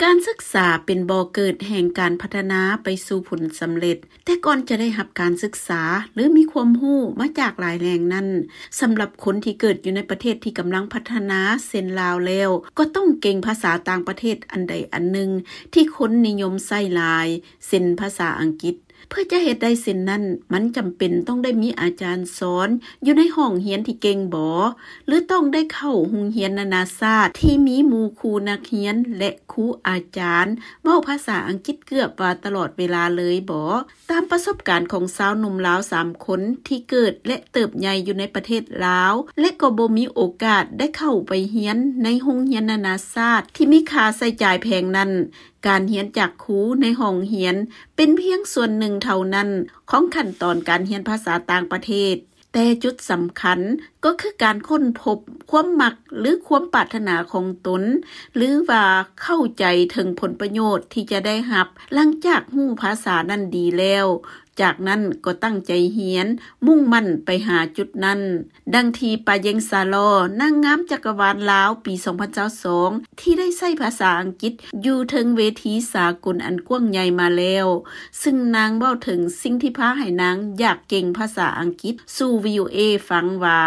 ການສຶກສາເປັນບໍ່ເກີດແຫ່ງການພັດທະນາໄປສູ່ຜົນສຳເລັດ, ແຕ່ກ່ອນຈະໄດ້ຮັບການສຶກສາ ຫຼື ມີຄວາມຮູ້ມາຈາກຫຼາຍແຫຼ່ງນັ້ນ, ສຳລັບຄົນທີ່ເກີດຢູ່ໃນປະເທດທີ່ກຳລັງພັດທະນາເຊັ່ນລາວແລ້ວ, ກໍຕ້ອງເກັ່ງພາສາຕ່າງປະເທດອັນໃດອັນໜຶ່ງທີ່ຄົນນິຍົມໃຊ້ຫຼາຍ, ເຊັ່ນ ພາສາອັງກິດ. ເພື່ອຈະເຮັດໄດ້ເຊັ່ນນັ້ນ, ມັນຈຳເປັນຕ້ອງໄດ້ມີອາຈານສອນຢູ່ໃນຫ້ອງຮຽນທີ່ເກັ່ງບໍ ຫຼື ຕ້ອງໄດ້ເຂົ້າໂຮງຮຽນນານາຊາດທີ່ມີໝູ່ຄູ່ນັກຮຽນ ແລະ ຄູອາຈານເວົ້າພາສາອັງກິດເກືອບວ່າຕະຫຼອດເວລາເລີຍບໍ? ຕາມປະສົບການຂອງຊາວໜຸ່ມລາວສາມຄົນທີ່ເກີດ ແລະ ເຕີບໃຫຍ່ຢູ່ໃນປະເທດລາວ ແລະ ກໍບໍ່ມີໂອກາດໄດ້ເຂົ້າໄປຮຽນໃນໂຮງຮຽນນານາຊາດທີ່ມີຄ່າໃຊ້ຈ່າຍແພງນັ້ນ, ການຮຽນຈາກຄູໃນຫ້ອງຮຽນເປັນພຽງສ່ວນໜຶ່ງເທົ່ານັ້ນຂອງຂັ້ນຕອນການຮຽນພາສາຕ່າງປະເທດ, ແຕ່ຈຸດສຳຄັນກໍຄືການຄົ້ນພົບຄວາມມັກ ຫຼື ຄວາມປາດຖະໜາຂອງຕົນ ຫຼື ວ່າເຂົ້າໃຈເຖິງຜົນປະໂຫຍດທີ່ຈະໄດ້ຮັບຫຼັງຈາກຮູ້ພາສານັ້ນດີແລ້ວ, ຈາກນັ້ນກໍຕັ້ງໃຈຮຽນ, ມຸ່ງໝັ້ນໄປຫາຈຸດນັ້ນ. ດັ່ງທີ່ ປາເຢັງ ສາລໍ ນາງງາມຈັກກະວານລາວປີສອງພັນຊາວສອງ ທີ່ໄດ້ໃຊ້ພາສາອັງກິດຢູ່ເທິງເວທີສາກົນອັນກວ້າງໃຫຍ່ມາແລ້ວ, ຊຶ່ງນາງເວົ້າເຖິງສິ່ງທີ່ພາໃຫ້ນາງຢາກເກັ່ງພາສາອັງກິດສູ່ ວີໂອເອ ຟັງວ່າ: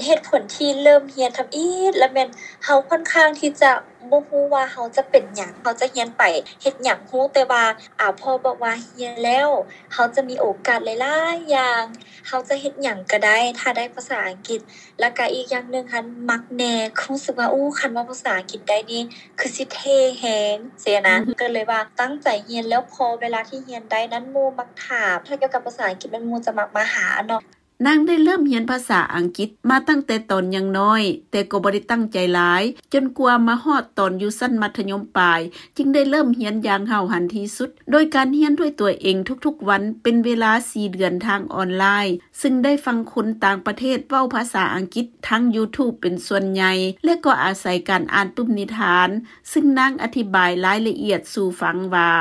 ເຫດຜົນທີ່ເລີ່ມຮຽນທຳອິດລະແມ່ນເຮົາຂ້ອນຂ້າງທີ່ຈະບໍ່ຮູ້ວ່າເຮົາຈະເປັນຫຍັງ, ເຮົາຈະຮຽນໄປເຮັດຫຍັງ, ຮູ້ແຕ່ວ່າ ອາ ພໍ່ບອກວ່າຮຽນແລ້ວເຮົາຈະມີໂອກາດຫຼາຍໆຢ່າງ, ເຮົາຈະເຮັດຫຍັງກໍໄດ້ ຖ້າໄດ້ພາສາອັງກິດ. ແລ້ວກະອີກຢ່າງໜຶ່ງຫັ້ນມັກແນ່, ຮູ້ສຶກວ່າ ໂອ້ ຄັນເວົ້າພາສາອັງກິດໄດ້ນີ້ຄືຊິເທ່ແຮງຊີ້ນະ. ກໍເລີຍວ່າຕັ້ງໃຈຮຽນ, ແລ້ວພໍເວລາທີ່ຮຽນໄດ້ນັ້ນ ໝູ່ມັກຖາມ ຖ້າກ່ຽວກັບພາສາອັງກິດແມ່ນໝູ່ຈະມັກມາຫາເນາະ. ນາງໄດ້ເລີ່ມຮຽນພາສາອັງກິດມາຕັ້ງແຕ່ຕອນຍັງນ້ອຍ, ແຕ່ກໍບໍ່ໄດ້ຕັ້ງໃຈຫຼາຍ, ຈົນກວ່າມາຮອດຕອນຢູ່ຊັ້ນມັດທະຍົມປາຍ, ຈຶ່ງໄດ້ເລີ່ມຮຽນຢ່າງຫ້າວຫັນທີ່ສຸດ, ໂດຍການຮຽນດ້ວຍຕົວເອງທຸກໆວັນເປັນເວລາສີ່ເດືອນທາງອອນລາຍ, ຊຶ່ງໄດ້ຟັງຄົນຕ່າງປະເທດເວົ້າພາສາອັງກິດທາງ YouTube ເປັນສ່ວນໃຫຍ່ ແລະ ກໍອາໄສການອ່ານປຶ້ມນິທານ, ຊຶ່ງນາງອະທິບາຍລາຍລະອຽດສູ່ຟັງວ່າ: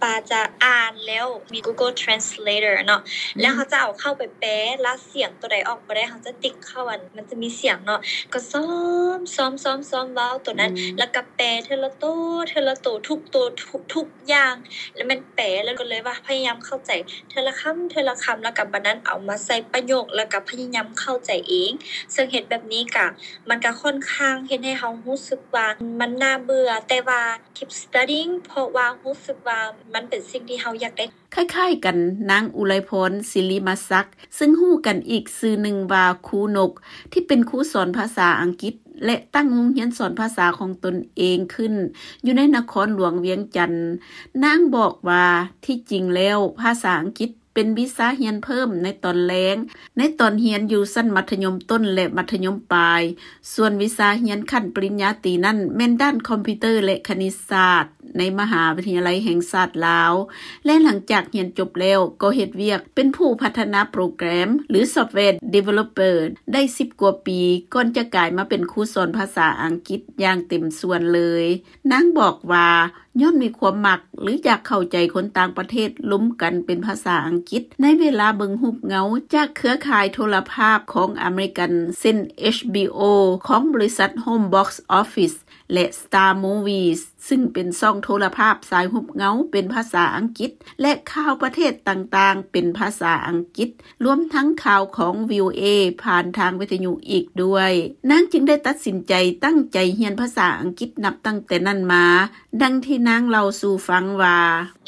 ປາຈະອ່ານແລ້ວມີ Google Translator ເນາະ, ແລ້ວເຮົາຈະເອົາເຂົ້າໄປແປ, ລະສຽງໂຕໃດອອກບໍ່ໄດ້ ເຮົາຈະຕິກເຂົ້າ ອັນ ມັນຈະມີສຽງເນາະ, ກໍຊ້ອມ ຊ້ອມ ຊ້ອມ ຊ້ອມເວົ້າໂຕນັ້ນ, ແລ້ວກໍແປເທື່ອລະໂຕ ເທື່ອລະໂຕ ທຸກໂຕ ທຸກ ທຸກຢ່າງ, ແລ້ວແມ່ນແປ ແລ້ວກໍເລີຍວ່າພະຍາຍາມເຂົ້າໃຈເທື່ອລະຄຳ ເທື່ອລະຄຳ, ແລ້ວກໍບາດນັ້ນເອົາມາໃສ່ປະໂຫຍກ ແລ້ວກໍພະຍາຍາມເຂົ້າໃຈເອງ. ເຊິ່ງເຮັດແບບນີ້ກະ ມັນກະຂ້ອນຂ້າງເຮັດໃຫ້ເຮົາຮູ້ສຶກວ່າມັນໜ້າເບື່ອ, ແຕ່ວ່າ keep studying ເພາະວ່າຮູ້ສຶກວ່າມັນເປັນສິ່ງທີ່ເຮົາຢາກໄດ້. ຄ້າຍໆກັນ, ນາງ ອຸໄລພອນ ສິລິມະສັກ ຊຶ່ງຮູ້ກັນອີກຊື່ໜຶ່ງວ່າ ຄູນົກ ທີ່ເປັນຄູສອນພາສາອັງກິດ ແລະ ຕັ້ງໂຮງຮຽນສອນພາສາຂອງຕົນເອງຂຶ້ນ ຢູ່ໃນນະຄອນຫຼວງວຽງຈັນ. ນາງບອກວ່າ ທີ່ຈິງແລ້ວ ພາສາອັງກິດ ເປັນວິຊາຮຽນເພີ່ມໃນຕອນແລງ, ໃນຕອນຮຽນຢູ່ຊັ້ນມັດທະຍົມຕົ້ນ ແລະ ມັດທະຍົມປາຍ, ສ່ວນວິຊາຮຽນຂັ້ນປະລິນຍາຕີນັ້ນ ແມ່ນດ້ານຄອມພິວເຕີ ແລະ ຄະນິດສາດ ໃນມະຫາວິທະຍາໄລແຫ່ງຊາດລາວ ແລະ ຫຼັງຈາກຮຽນຈົບແລ້ວ ກໍເຮັດວຽກເປັນຜູ້ພັດທະນາໂປຣແກຣມ ຫຼື software developer ໄດ້ສິບກວ່າປີ ກ່ອນຈະກາຍມາເປັນຄູສອນພາສາອັງກິດຢ່າງເຕັມສ່ວນເລີຍ. ນາງບອກວ່າ ຍ້ອນມີຄວາມມັກ ຫຼື ຢາກເຂົ້າໃຈຄົນຕ່າງປະເທດລົມກັນເປັນພາສາອັງກິດ ໃນເວລາເບິ່ງຮູບເງົາຈາກເຄືອຂ່າຍໂທລະພາບຂອງອາເມລິກັນ ເຊັ່ນ ເອຈບີໂອ ຂອງບໍລິສັດ Home Box Office ແລະ Star Movies ຊຶ່ງເປັນຊ່ອງໂທລະພາບສາຍຮູບເງົາເປັນພາສາອັງກິດ ແລະ ຂ່າວປະເທດຕ່າງໆເປັນພາສາອັງກິດ, ລວມທັງຂ່າວຂອງ ວີໂອເອ ຜ່ານທາງວິທະຍຸອີກດ້ວຍ. ນາງຈຶ່ງໄດ້ຕັດສິນໃຈຕັ້ງໃຈຮຽນພາສາອັງກິດນັບຕັ້ງແຕ່ນັ້ນມາ. ດັ່ງທີ່ນາງເລົ່າສູ່ຟັງວ່າ: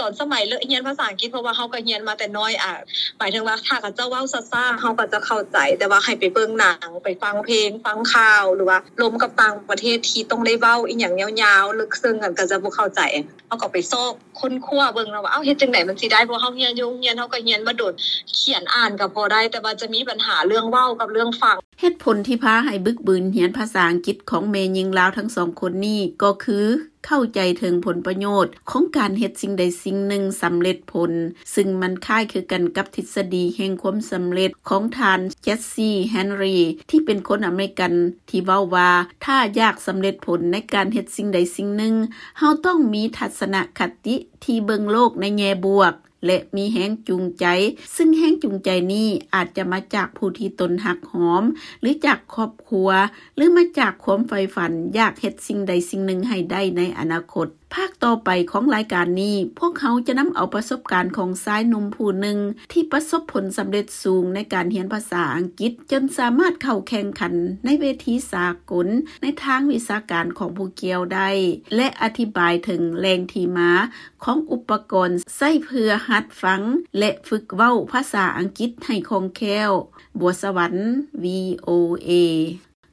ຕອນສະໄໝເລີ່ມຮຽນພາສາອັງກິດ ເພາະວ່າເຮົາກໍຮຽນມາແຕ່ນ້ອຍ, ອາ ໝາຍເຖິງວ່າຖ້າເຂົາເຈົ້າເວົ້າຊ້າໆ ເຮົາກໍຈະເຂົ້າໃຈ, ແຕ່ວ່າໃຫ້ໄປເບິ່ງໜັງ, ໄປຟັງເພງ, ຟັງຂ່າວ ຫຼືວ່າລົມກັບຕ່າງປະເທດທີ່ຕ້ອງໄດ້ເວົ້າອີ່ຫຍັງຍາວໆ ເລິກເຊິ່ງ ກໍຈະບໍ່ເຂົ້າໃຈ. ເຮົາກໍໄປຊອກຄົ້ນຄວ້າເບິ່ງເນາະວ່າ ເອົ້າ ເຮັດຈັ່ງໃດມັນຊິໄດ້, ເພາະເຮົາຮຽນຢູ່ໂຮງຮຽນ ເຮົາກໍຮຽນມາດົນ, ຂຽນອ່ານກໍພໍໄດ້, ແຕ່ວ່າຈະມີບັນຫາເລື່ອງເວົ້າກັບເລື່ອງຟັງ. ເຫດຜົນທີ່ພາໃຫ້ບຶກບືນຮຽນພາສາອັງກິດຂອງແມ່ຍິງລາວທັງສອງຄົນນີ້ກໍຄື ເຂົ້າໃຈເຖິງຜົນປະໂຫຍດຂອງການເຮັດສິ່ງໃດສິ່ງໜຶ່ງສຳເລັດຜົນ, ຊຶ່ງມັນຄ້າຍຄືກັນກັບທິດສະດີແຫ່ງຄວາມສຳເລັດຂອງທ່ານ ເຈັດຊີ ແຮນຣີ ທີ່ເປັນຄົນອາເມລິກັນ ທີ່ເວົ້າວ່າ ຖ້າຢາກສຳເລັດຜົນໃນການເຮັດສິ່ງໃດສິ່ງໜຶ່ງ, ເຮົາຕ້ອງມີທັດສະນະຄະຕິທີ່ເບິ່ງໂລກໃນແງ່ບວກ ແລະ ມີແຮງຈູງໃຈ, ຊຶ່ງແຮງຈູງໃຈນີ້ອາດຈະມາຈາກຜູ້ທີ່ຕົນຮັກຫອມ ຫຼື ຈາກຄອບຄົວ ຫຼື ມາຈາກຄວາມໃຝ່ຝັນຢາກເຮັດສິ່ງໃດສິ່ງໜຶ່ງໃຫ້ໄດ້ໃນອະນາຄົດ. ພາກຕໍ່ໄປຂອງລາຍການນີ້, ພວກເຮົາຈະນຳເອົາປະສົບການຂອງຊາຍໜຸ່ມຜູ້ໜຶ່ງທີ່ປະສົບຜົນສຳເລັດສູງໃນການຮຽນພາສາອັງກິດ ຈົນສາມາດເຂົ້າແຂ່ງຂັນໃນເວທີສາກົນໃນທາງວິຊາການຂອງຜູ້ກ່ຽວໄດ້ ແລະ ອະທິບາຍເຖິງແຫຼ່ງທີ່ມາຂອງອຸປະກອນໃຊ້ເພື່ອຫັດຟັງ ແລະ ຝຶກເວົ້າພາສາອັງກິດໃຫ້ຄ່ອງແຄ້ວ. ບົວສະຫວັນ ວີໂອເອ.